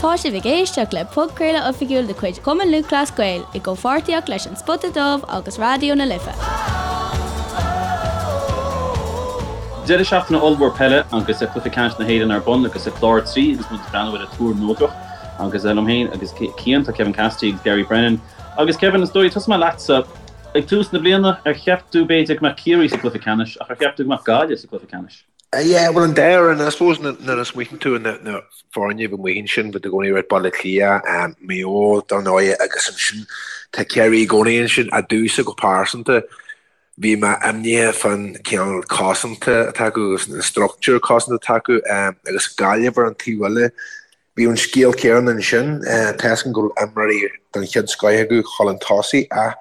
Tá sibh ag éisteacht le podchraoladh oifigiúil de chuid Chumann Lúthchleas Gael i gcomhpháirtíocht leis An Spota Dubh agus Raidió na Life. Deireadh seachtaine ollmhór peile agus Cluiche Ceannais na hÉireann ar bun agus clár 3 agus muid ag breathnú ar an túr neodrach agus liom féin agus Cian, tá Kevin Cassidy agus Gary Brennan. Agus Kevin, is dóigh, tosóidh mé leatsa. Ag tús na bliana, ar cheap tú b'fhéidir go mbeadh Ciarraí sa gcluiche ceannais ach ar cheap tú go mbeadh Gaillimh sa gcluiche ceannais? Yeah, bhuel an dá fhoireann, I suppose nuair a smaoiníonn tú ar na foirne a bhí amuigh ansin, bhí i gcónaí right Baile Átha Cliath, Maigh Eo, dar ndóigh, agus ansin tá Ciarraí i gcónaí ansin, ach domhsa go pearsanta, bhí mé imníoch fán cineál cosanta atá acu agus an structúr cosanta atá acu agus Gaillimh ar an taobh eile. Bhí an scéal céanna ansin. Tá 'fhios agam go raibh imreoirí den chéad scoith acu chun tosaigh ach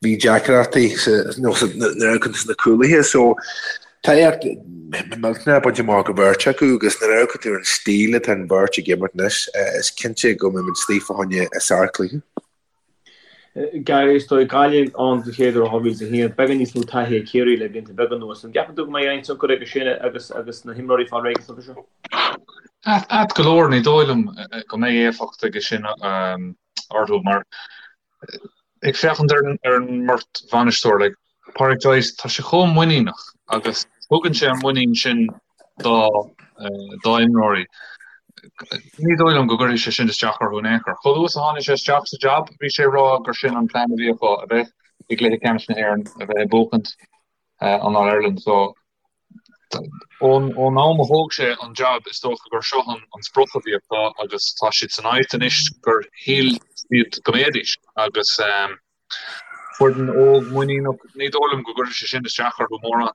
bhí deacrachtaí nuair a amharcann tú sna cúlaithe. So tá éacht millteanach bainte amach ag an bheirt acu agus nuair a amharcann tú ar an stíl atá an bheirt ag imirt anois, is cinnte go mbeidh muid istigh fá choinne sárchluiche. Gary, is dóigh, Gaillimh ann den chéad uair ó 2001, beagán níos mó taithí ag Ciarraí le blianta beaga anuas. An gceapann tú go mbeidh aon tionchar aige sin agus agus na himreoirí ag fáil réidh don chluiche seo? Ait go leor, ní dóigh liom go mbeidh éifeacht aige sin orthu mar ag féachaint ar an mbeirt bhainisteoir, like, Pádraic Joyce, tá sé chomh muiníneach agus tugann sé an muinín sin dá dá imreoirí. Ní dóigh liom go gcuirfidh sé sin isteach orthu in aon chor. Chomh luath is a tháinig sé isteach sa jab, bhí sé ag rá gur sin an plean a bhí acu, a bheith i gcluiche ceannais na hÉireann, a bheith ag buachaint an All-Ireland. So, ón ón am a thóg sé an jab, is dócha gur seo an an sprioc a bhí acu agus tá siad san áit anois gur shíl siad go mbeidís agus Foireann óg muiníneach, ní dóigh liom go gcuirfidh sé sin isteach orthu mórán.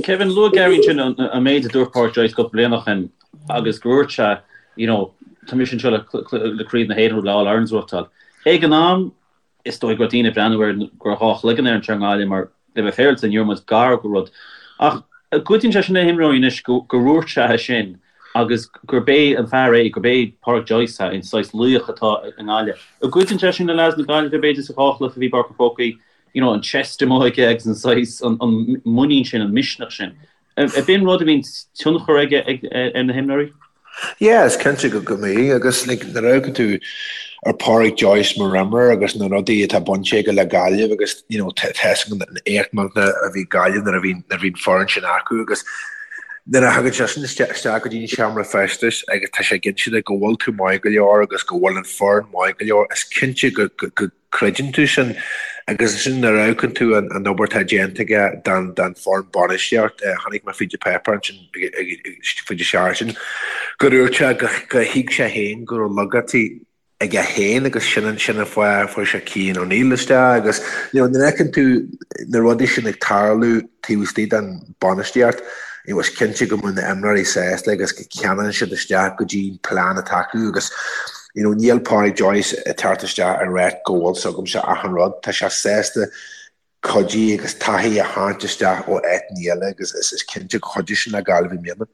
Kevin, luaigh Gary ansin an méid a dúirt Pádraic Joyce cúpla bliain ó shin agus gur dhúirt sé, you know, tá mise anseo le le Craobh na hÉireann le All Irelands a bhuachtáil. Ag an am, is dóigh go raibh daoine ag breathnú air go raibh dhá chloigeann air anseo i nGaillimh mar le bheith féaráilte ní raibh muid gar do rud. Ach an gcuidíonn sé sin le himreoirí anois go gur dhúirt sé é sin agus gurb é an fear é, gurb é Pádraic Joyce é, an saghas laoch atá i nGaillimh. An gcuidíonn sé sin le leaids na Gaillimhe, b'fhéidir, sa dhá chluiche a bhí i bPáirc an Chrócaigh, you know, an chest amuigh aige agus an saghas, an muinín sin, an misneach sin. Ab in rud a bhíonn tionchar aige ar na himreoirí? Yeah, is cinnte go mbíonn agus like, nuair a amharcann tú ar Pádraic Joyce mar imreoir agus na rudaí atá bainte aige le Gaillimh agus you know, tá 'fhios againn an éacht millteanach a bhí Gaillimh nuair a bhí nuair a bhí an foireann sin acu agus Nuair a thagann seisean isteach go dtí an seomra feistis agus tá sé ag inse duit go bhfuil tú maith go leor agus go bhfuil an foireann maith go leor, is cinnte go gcreideann tú sin agus ansin nuair a amharcann tú an obair atá déanta aige don foireann bainistíocht, chonaic mé fríd an páipéar ansin fríd an seachtain gur dhúirt sé gur thuig sé féin go raibh laigeachtaí aige féin agus sin an sin an fáth a fuair sé Cian O'Neill isteach agus you know nuair a fheiceann tú na rudaí sin ag tarlú taobh istigh den bainistíocht you know is cinnte go mbeidh na imreoirí sásta agus go ceanann siad isteach go dtí an plean atá acu agus you know níl Pádraic Joyce ag teacht isteach ag ráit go bhfuil 's agamsa achan rud tá sé sásta cuidiú agus taithí a tharraingt isteach ó áiteanna eile agus is cinnte go chuideoidh sin le Gaillimh i mbliana.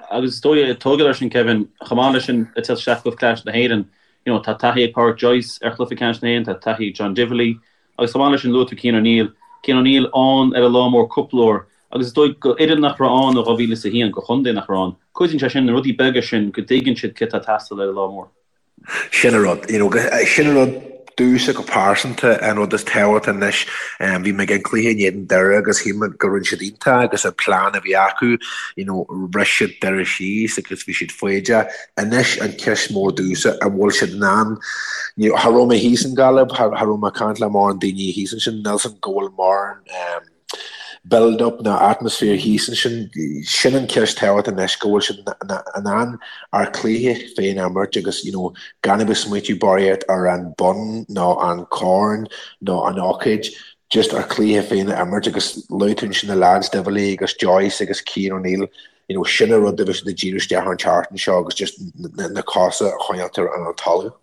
Agus is dóigh, ag tógáil air sin Kevin, chomh maith leis sin ag teacht isteach i gcluiche ceannais na hÉireann, you know, tá taithí ag Pádraic Joyce ar chluiche ceannais na hÉireann, tá taithí ag John Divilly agus chomh maith leis sin luaigh tú Cian O'Neill, Cian O'Neill ann ar an lá mór cúpla uair agus is dóigh go fhoireann nach raibh ann ó 2001, go chontae nach raibh ann, cuidíonn sé sin, na rudaí beaga sin go dtuigeann siad céard atá ag teastáil ar an lá mór. Sin an rud, you know, sin an rud domhsa go pearsanta, an rud is tábhachtaí anois. Bhí mé ag an cluiche in éadan Doire agus shíl mé go rinne siad iontach agus an plean a bhí acu, you know, bhris siad Doire síos agus bhí siad foighdeach. Anois an ceist mór domhsa, an bhfuil siad in ann, you know, cha raibh mé thíos in Gaillimh, cha raibh mé ag caint le mórán daoine thíos ansin, níl 's agam go bhfuil mórán, build up ná atmaisféar thíos ansin, sin an cheist tábhachtach anois, go bhfuil siad in ann ár cluiche féin a imirt agus you know gan a bheith smaoitiú barraíocht ar an bonn nó an corn nó an ócáid, just ár cluiche féin a imirt agus luaigh tú ansin na lads, Divilly agus Joyce agus Cian O'Neill, you know sin an rud a bheidh siad ag díriú isteach ar an tseachtain seo agus just na cosa a choinneáilt ar an talamh.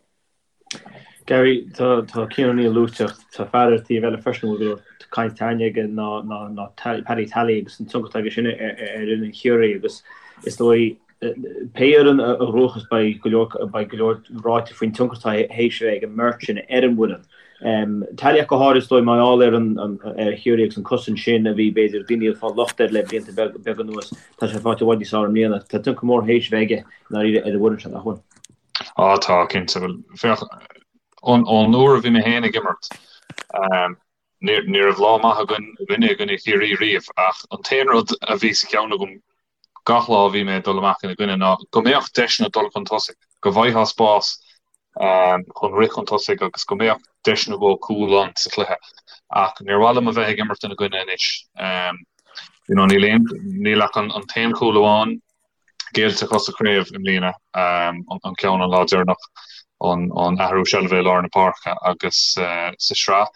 Gary, tá tá Cian O'Neill luaite ach tá fear ar an taobh eile freisin a bhfuil go leor caint tarraingthe aige ná ná ná Paddy Tally agus an tionchar atá aige sin ar ar fhoireann Chiarraí agus is dóigh pé fhoireann a ghnóthós beidh go leor beidh go leor ráite faoin tionchar atá théis a bheith ag an mbeirt sin ar an bhfoireann. Tally ach go háirid is dóigh mar gheall ar an ar Chiarraí agus an cosaint sin a bhí b'fhéidir daoine ag fáil locht air le blianta beaga anuas tá sé faighte i bhfad níos fearr i mbliana. Tá tionchar mór théis a bheith aige i ndáiríre ar an bhfoireann seo nach bhfuil? Á tá, cinnte. Bhuel, féach, ón uair a bhí mé féin ag imirt, ní raibh lá maith againn againne i gcoinne Chiarraí riamh ach an t-aon rud a bhí sa cheann agam gach lá a bhí mé ag dul amach ina gcoinne ná go mbeadh deiseanna dul chun tosaigh, go bhfaighfeá spás chun rith chun tosaigh agus go mbeadh deis nó dhó cúl ann sa chluiche. Ach níor mhaith liom a bheith ag imirt ina gcoinne anois. You know, níl aon, níl ach an t-aon chúl amháin géillte acu sa chraobh i mbliana, an ceann an lá deireanach, an athrú seilbhe i lár na páirce agus sa sraith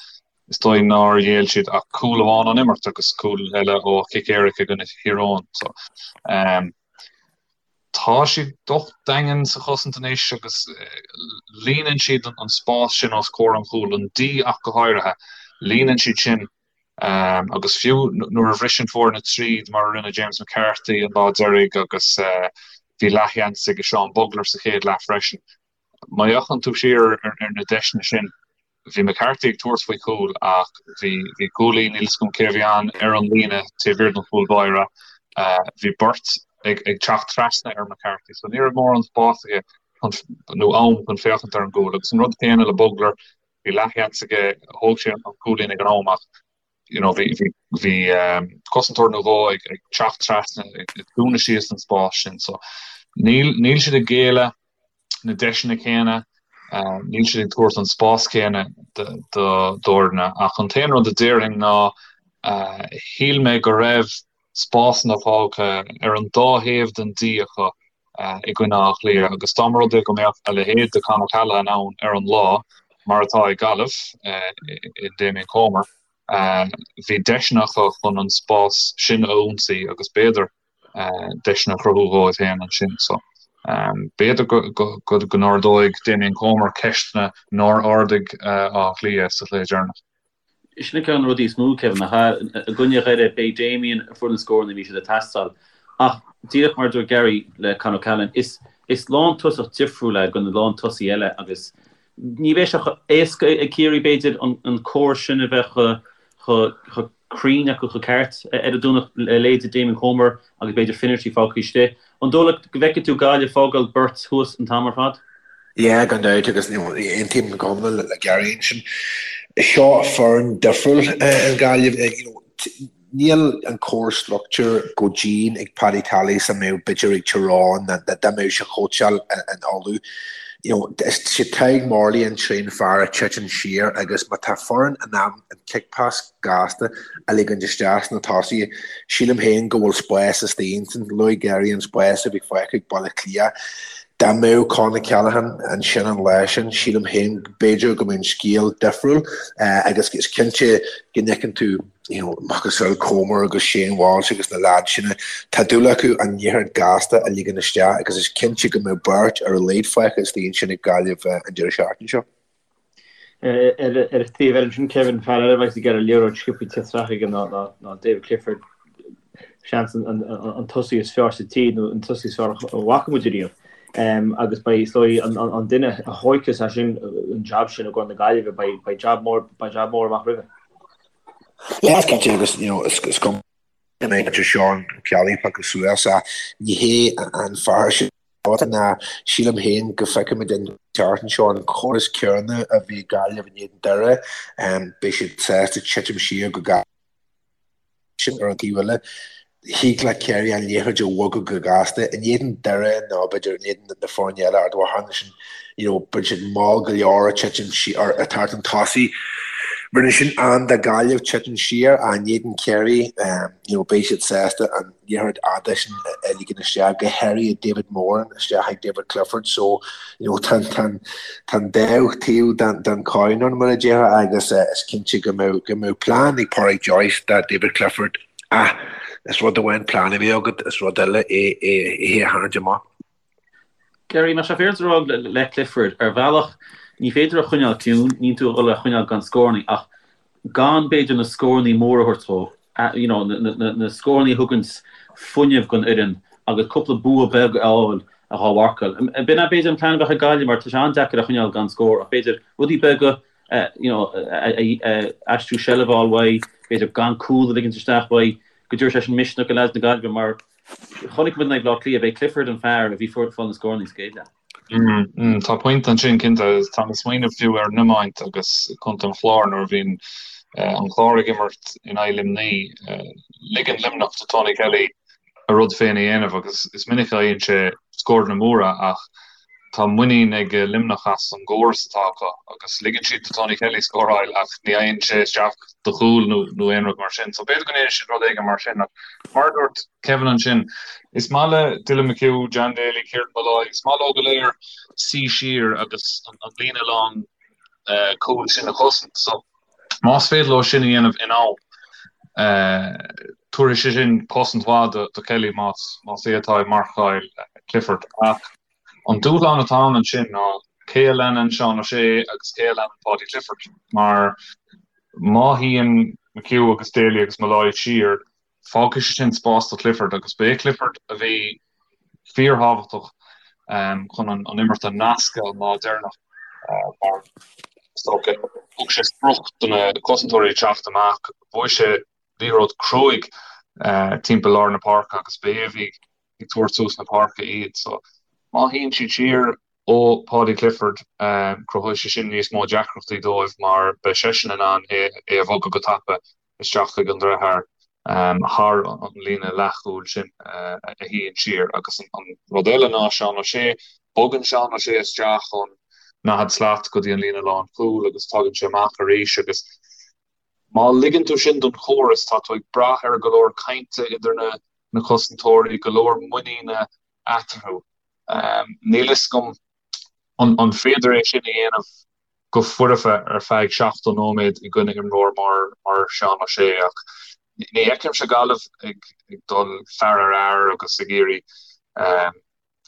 is dóigh nár ghéill siad ach cúl amháin ón imirt agus cúl eile ó chic éirice i gcoinne Thír Eoghain. So, tá siad docht daingean sa chosaint anois agus líonann siad an spás sin os comhair an chúil, an D ach go háirithe, líonann siad sin Agus fiú nuair a bhriseann foirne tríd, mar a rinne James McCarthy an lá deiridh agus bhí leathsheans ag Seán Bugler sa chéad leath freisin, má fhéachann tú siar ar na deiseanna sin, bhí McCarthy ag tabhairt faoi chúl ach bhí cúlaí, níl 'fhios agam cé a bhí ann, ar an líne taobh thiar den chúl báire. Bhí beirt ag teacht trasna ar McCarthy so ní raibh mórán spáis aige nó am chun féachaint ar an gcúl. Agus an rud céanna le Bugler, Bhí leathsheans aige, thóg sé an cúilín ag an am ach you know bhí bhí bhí cosantóir nó dhó ag ag teacht trasna ag dúnadh síos an spás sin so níl níl siad ag géilleadh na deiseanna céanna, níl siad ag tabhairt an spás céanna d'fhoirne ach an t-aon rud a déarfainn ná shíl mé go raibh spásanna fágtha ar an dá thaobh den D acu i gcoinne Átha Cliath agus dá mba rud é go mbeadh a leithéid de Con O'Callaghan ann ar an lá, mar atá ag Gaillimh i Damien Comer, bhí deiseanna acu chun an spás sin a ionsaí agus b'fhéidir deiseanna a chruthú dhóibh féin ansin. So, b'fhéidir go n-ardóidh Damien Comer ceisteanna nár ardaigh Áth Cliath sa chluiche deireanach. Sin ceann de na rudaí is mó, Kevin, nach ea? I gcoinne Dhoire, b'é Damien a fuair na scóranna a bhí siad ag teastáil. Ach díreach mar a dúirt Gary le Con O'Callaghan, is is lántosach difriúil é go na lántosaithe eile agus ní bheidh sé chomh éasca ag Ciarraí, b'fhéidir, an córas sin a bheith chomh chomh cruinn acu chomh ceart ar an Domhnach le leithéid Damien Comer agus b'fhéidir Finnerty fágtha istigh. An dóigh leat go bhfeicfidh tú Gaillimh fágáil beirt thuas an t-am ar fad? Yeah, gan dabht, agus aontaím go hiomlán le Gary ansin. Seo foireann difriúil an Ghaillimh. Níl an córas struchtúr chomh dian ag Paddy Tally is a mbeadh b'fhéidir ag Tyrone ná dá mbeadh sé ag cóitseáil in Uladh. You know, is sé Tadhg Morley an tríú fear a titeann siar agus má tá foireann in ann an kick pass gasta a ligint isteach sna tosaithe, sílim féin go bhfuil spás istigh ansin. Luaigh Gary an spás a bhí fágtha ag Baile Átha Cliath. Dá mbeadh Con O'Callaghan ansin an lá sin, sílim féin b'fhéidir go mbeadh an scéal difriúil agus is cinnte go bhfeiceann tú you know, macasamhail Comer agus Shane Walsh agus na leaids sin, tá dúil acu an liathróid gasta a ligean isteach agus is cinnte go mbeadh beirt ar a laghad fágtha istigh ansin ag Gaillimh an deireadh seachtaine seo. Ar an taobh eile ansin, Kevin, fear eile a bheas ag iarraidh liathróid sciobtha teacht isteach aige ná David Clifford, seans an tosaí is fearr sa tír nó an tosaí is fearr a bhfaca muid ariamh. Agus beidh, is dóigh, an duine a thóigfeas é sin, an jab sin i gcomhair na Gaillimhe, beidh jab mór, beidh jab mór amach roimhe. Yeah, is cinnte agus, you know, is cuma go mbeidh Seán Kelly pioctha suas ach ní hé an fear sin. ná sílim féin go bhfeicfimid an tseachtain seo an córas céanna a bhí ag Gaillimh in éadan Doire. Beidh siad sásta titim siar go gasta sin ar an taobh eile. Thig le Ciarraí an liathróid a bhogadh go gasta in éadan Doire nó b'fhéidir in éadan na foirne eile Ard Mhacha sin you know bíonn siad mall go leor ag titim siar ag teacht chun tosaigh. Rinne sin an do Gaillimh titim siar in éadan Ciarraí you know beidh siad sásta an liathróid fhada sin a ligean isteach, go háirithe David Moran isteach ag David Clifford so you know tá an tá an dá taobh den den coin ann mar a déarfá agus is cinnte go mbeadh go mbeadh plean ag Pádraic Joyce do David Clifford ach is rud amháin plean a bheith agat is rud eile é é é a tharraingt amach. Gary, Tá sé féaráilte a rá le Clifford, ar bhealach, ní féidir a choinneáil ciúin, níl tú ag dul é a choinneáil gan scórannaí, ach gan b'fhéidir na scórannaí móra a thabhairt dó, you know, na scórannaí a thuganns fuinneamh don fhoireann agus cúpla bua beag a fháil dhá mharcáil. B'in é b'fhéidir an plean a bheadh ag Gaillimh mar tá sé an-deacair a choinneáil gan scór ach b'fhéidir rudaí beaga you know, aistriú seilbh a fháil uaidh, b'fhéidir gan cúl a ligint isteach uaidh, go dtabharfaidh sé sin misneach do leaids na Gaillimhe mar Chonaic muid in aghaidh Bhaile Átha Cliath, b'é Clifford an fear a bhí ag fáil na scórannaí sa gcéad leath. Tá pointe ansin cinnte. Tá mé ag smaoineamh fiú ar an iomáint agus Contae an Chláir nuair a bhíonn an Clár ag imirt in aghaidh Luimnigh. Ligeann Luimneach do Tony Kelly a rud féin a dhéanamh agus is minic a fhaigheann sé scóranna móra ach tá muinín ag Luimneach as an gcóras atá acu agus ligeann siad do Tony Kelly scóráil ach ní fhaigheann sé isteach do chúl nó nó aon rud mar sin. So b'fhéidir go ndéanfaidh siad rud éigin mar sin ach mar a dúirt Kevin ansin, is maith le Dylan McHugh, John Daly, Kieran Molloy, is maith leo go léir suí siar agus an líne lán cúil sin a chosaint. So Más féidir leo sin a dhéanamh in am, tabharfaidh sé sin cosaint mhaith do Kelly más é atá ag marcáil Clifford. Ach an dúshlán atá ann ansin ná cé a leanann Seán O'Shea agus cé a leanann Paudie Clifford mar má shuíonn McHugh agus Daly agus Molloy siar, Fágfaidh sé sin spás do Clifford agus ba é Clifford a bhí fíorthábhachtach chun an imirt a nascadh an lá deireanach mar is dócha thug sé sprioc do na cosantóirí teacht amach, bhuaigh sé liathróid cruaidh timpeall lár na páirce agus ba é a bhí ag tabhairt suas na páirce iad. So má shuíonn siad siar ó Paudie Clifford, cruthóidh sé sin níos mó deacrachtaí dóibh mar beidh seisean in ann é a bhogadh go tapa isteach chuig an deartháir thar an líne leathchúil sin a shuíonn siar. Agus an rud eile ná Seán O'Shea, bogann Seán O'Shea isteach ón 40 slat go dtí an líne lánchúil agus tagann sé amach arís agus má ligeann tú sin don chóras, tá tú ag brath ar go leor cainte idir na cosantóirí, go leor muiníne eatarthu. Níl fhios agam An féidir é sin a dhéanamh go foirfe ar feadh 70 nóiméad i gcoinne imreoir mar Seán O'Shea? Ach ní fheicimse Gaillimh ag dul fear ar fhear agus ag iarraidh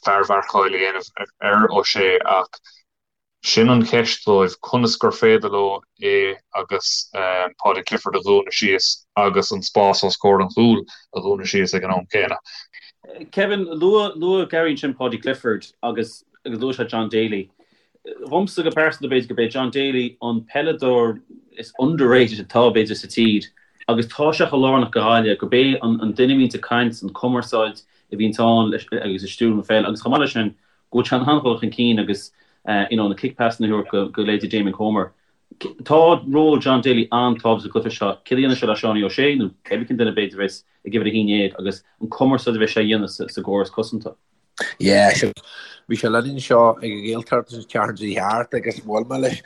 fearmharcáil a dhéanamh ar O'Shea ach sin an cheist dóibh, conas gur féidir leo é agus Paudie Clifford a dhúnadh síos agus an spás os comhair an chúil a dhúnadh síos ag an am céanna. Kevin, luaigh Gary ansin Paudie Clifford agus agus luaigh sé John Daly. Dhomsa go pearsanta b'fhéidir gurb é John Daly an peileadóir is underrated atá b'fhéidir sa tír agus tá sé chomh lárnach do Ghaillimh gurb é an duine a bhíonns ag caint, an cumarsáid a bhíonns ann agus ag stiúradh na peile agus chomh maith leis sin go bhfuil sé in ann dul chun cinn agus you know na kick passes a thabhairt go go leithéidí Damien Comer. Tá ról John Daly an-tábhachtach sa gcluiche seo. Céard a dhéanfaidh sé le Seánie O'Shea nó cébí cén duine b'fhéidir a bheas ag uimhir 11 agus an cumarsáid a bheidh sé a dhéanamh sa gcóras cosanta. Yeah, sure. Bhí sé linn anseo ag an Ghaeltacht an tseachtain seo thart agus bhuail mé leis.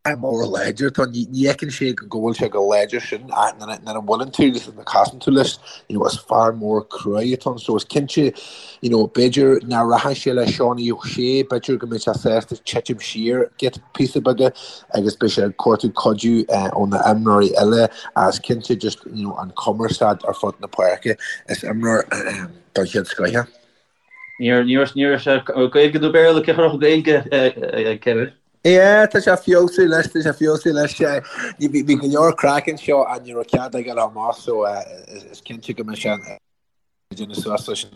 Fear mór láidir atá ann. Ní fheiceann sé go bhfuil sé chomh láidir sin ach nuair a bhuaileann tú agus nuair a chasann tú leis, you know, is fear mór cruaidh atá ann. So is cinnte, you know, b'fhéidir nach rachaidh sé le Seánie O'Shea, b'fhéidir go mbeidh sé sásta titim siar giota píosa beaga agus beidh sé ag cuartú cuidiú ó na imreoirí eile ach is cinnte just, you know, an cumarsáid ar fud na páirce. Is imreoir den chéad scoith é. Ní raibh sé Gaeilge nó Béarla, cé chuirfeadh Gaeilge, Kevin? Yeah, tá sé feabhsú leis, tá sé feabhsú leis. Bhí go leor craic anseo ach ní raibh cead aige le amach so is cinnte go mbeidh sé ag déanamh suas leis.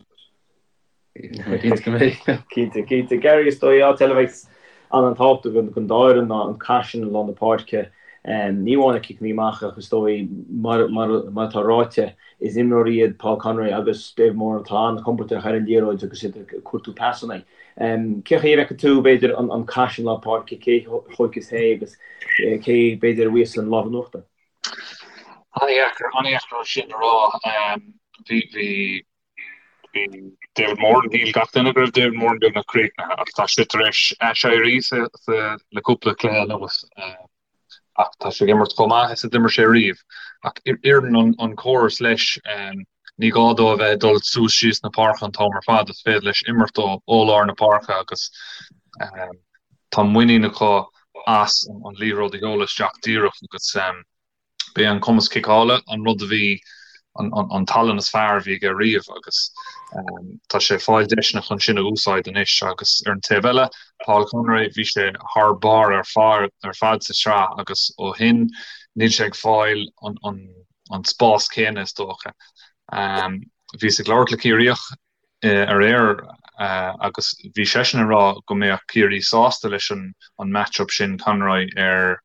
Cinnte go mbeidh. Cinnte, cinnte. Gary, is dóigh áit eile a bheidh an-tábhachtach don dá fhoireann ná an cath sin i lár na páirce. Ní amháin na ciceanna amach ach is dóigh mar atá ráite, Is imreoirí iad Paul Conroy agus David Moran atá an-chompordach ar an liathróid agus iad ag cuartú pasanna. Cén chaoi a bhfeiceann tú, b'fhéidir, an cath sin lár páirce, cé a thóigfeas é agus cé, b'fhéidir, a bhuafas an lámh in uachtar? An-dheacair, an-dheacair sin a rá. Bhí, bhí, bhí David Moran, shíl gach duine go raibh David Moran beagnach críochnaithe ach tá sé tar éis aiséirí sa, sa, le cúpla cluiche anuas. Ach tá sé ag imirt chomh maith is a d'imir sé riamh. Ach oireann an córas leis, ní gá dó a bheith ag dul suas síos na páirce an t-am ar fad, is féidir leis imirt ó lár na páirce agus tá muinín acu as an liathróid a sheoladh isteach díreach agus B'é an cumas ciceála an rud a bhí, an tallann is fearr a bhí aige riamh agus tá sé ag fáil deiseanna chun sin a úsáid anois agus ar an taobh eile, Paul Conroy, bhí sé thar barr ar fad sa tsraith agus ó shin níl sé ag fáil an spás céanna is dócha. Bhíos ag labhairt le Ciarraíoch aréir agus bhí seisean ag rá go mbeadh Ciarraí sásta leis an match-up sin, Conroy ar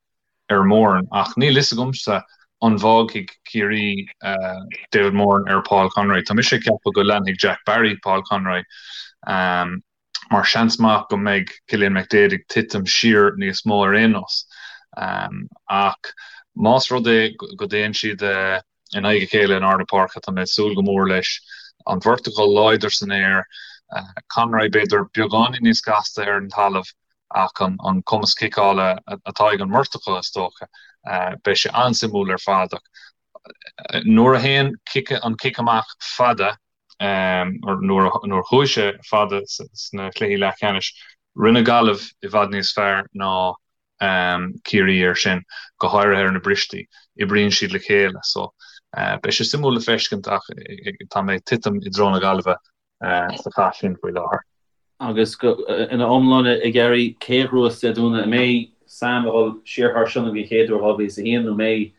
ar Moran ach níl fhios agamsa an bhfágfaidh Ciarraí David Moran ar Paul Conroy. Tá mise ag ceapadh go leanfaidh Jack Barry Paul Conroy. Mar seans maith go mbeidh Cillian McDaid ag titim siar níos mó ar aon nós. Ach más rud é go dtéann siad in aghaidh a chéile in ard na páirce, tá mé ag súil go mór leis. An bheirt acu láidir san aer, Conroy b'fhéidir beagáinín níos gasta ar an talamh ach an cumas ciceála atá ag an mbeirt acu is dócha. Beidh sé an-suimiúil ar fad ach nuair a théann an cic amach fada, nuair a chuaigh sé fada sna cluichí leathcheannais, rinne Gaillimh i bhfad níos fearr ná Ciarraí air sin, go háirithe ar na bristí. Oibríonn siad le chéile so beidh sé suimiúil le feiscint ach tá mé ag titim i dtreo na Gaillimhe sa chath sin faoi láthair. Agus ina iomláine, a Gary, cé a ghnóthós Dé Domhnaigh? An mbeidh Sam ag dul siar thar Sionainn den chéad uair ó 2001 nó an mbeidh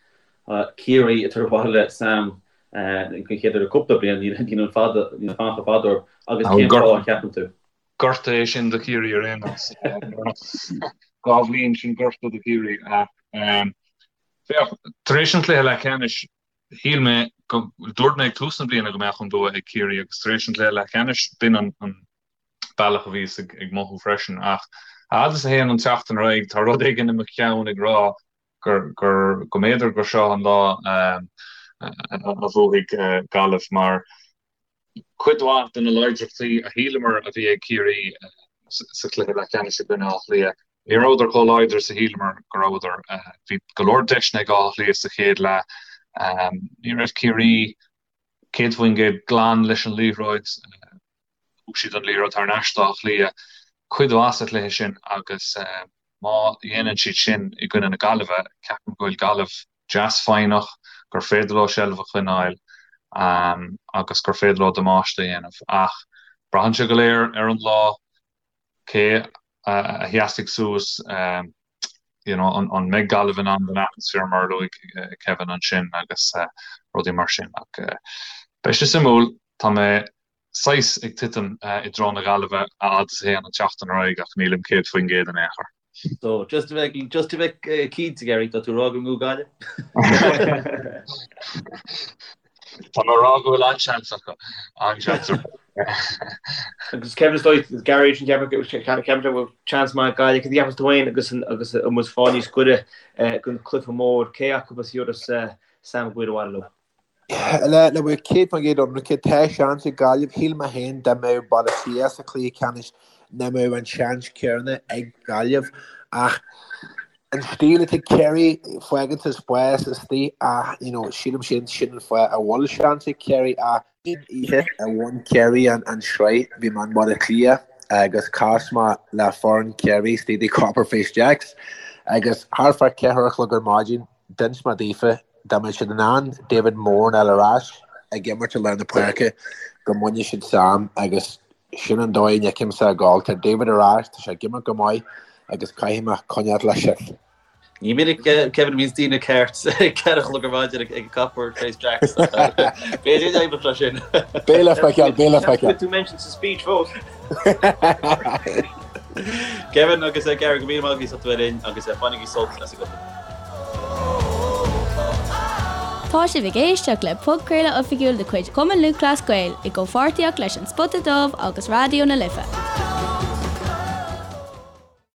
Ciarraí ag tabhairt abhaile Sam den chéad uair le cúpla bliain? Níl an fada, níl an fanacht chomh fada orthu. Agus cén fáth a cheapann tú? Gorta é sin do Chiarraí ar aon nós. Dhá bhliain sin gorta do Chiarraí. Ach féach, tar éis an chluiche leathcheannais, Shíl mé go, dúirt mé ag tús na bliana go mbeadh an bua ag Ciarraí agus tar éis an chluiche leathcheannais, b'in an bealach a bhíos ag mothú freisin. Ach a fhad is a théann an tseachtain ar aghaidh, tá rud éigin i mo cheann ag rá gur, gur, go mb'fhéidir gur seo an lá a bhuafaidh Gaillimh mar Cuid mhaith de na láidreachtaí a shíleamar a bhí ag Ciarraí sa chluiche leathcheannais i gcoinne Átha Cliath, ní rabhadar chomh láidir is a shíleamar go rabhadar. Bhí go leor deiseanna ag Áth Cliath sa chéad leath. Ní raibh Ciarraí 100% glan leis an liathróid. Thug siad an liathróid thar n-ais d'Áth Cliath cuid mhaith sa chluiche sin agus má dhéanann siad sin i gcoinne na Gaillimhe, ceapaim go bhfuil Gaillimh deas foighneach, gur féidir leo seilbh a choinneáil agus gur féidir leo damáiste a dhéanamh. Ach braitheann sé go léir ar an lá, cé a sheasfaidh suas, you know, an mbeidh Gaillimh in ann don atmaisféar mar a luaigh Kevin ansin agus rudaí mar sin. Ach beidh sé suimiúil, tá mé saghas ag titim i dtreo na Gaillimhe a fhad is a théann an tseachtain ar aghaidh ach nílim 100% in aon chor. So, just a bheith, just a bheith cinnte, Gary, tá tú ag rá go mbuafaidh Gaillimh? Tá mé ag rá go bhfuil an-seans acu, an-seans acu. Agus Kevin is dóigh, Gary sin ceapaim go bhfuil seans maith ag Gaillimh, cad a cheapas tú féin agus agus an bhfuil fáil níos gaire don chluiche mór, cé acu a thabharfas Sam Maguire abhaile leo? Le bheith 100% ionraice, tá seans ag Gaillimh. Shíl mé féin dá mbeadh Baile Átha Cliath sa chluiche ceannais nach mbeadh an seans céanna ag Gaillimh. Ach an stíl atá ag Ciarraí, fágann sa spás istigh ach you know, sílim sin sin an fáth a bhfuil seans ag Ciarraí ach an oíche a bhain Ciarraí an sraith bhí mé i mBaile Átha Cliath agus chas mé le foireann Chiarraí istigh i Copper Face Jacks agus thart fá cheathair a chlog ar maidin D'inis mé daofa dá mbeadh siad in ann David Moran a fháil ar ais ag imirt i lár na páirce go mbainfeadh siad Sam agus sin an dóigh a bhfeicimse ag gabháil. Tá David ar ais, tá sé ag imirt go maith agus caithfidh mé coinneáil leis sin. Ní minic Kevin a bhíonns daoine ceart ag 4 a chlog ar maidin ag Copper Face Jacks. B'fhéidir go n-oibreodh sé sin. Beidh le feiceáil, beidh le feiceáil. Tú mentioned sa speech fós. Kevin agus Gary go míle maith agaibh as ucht a bheith linn agus bainigí sult as an gcluiche. Tá sibh ag éisteacht le podchraoladh oifigiúil de chuid Chumann Lúthchleas Gael i gcomhpháirtíocht leis An Spota Dubh agus Raidió na Life.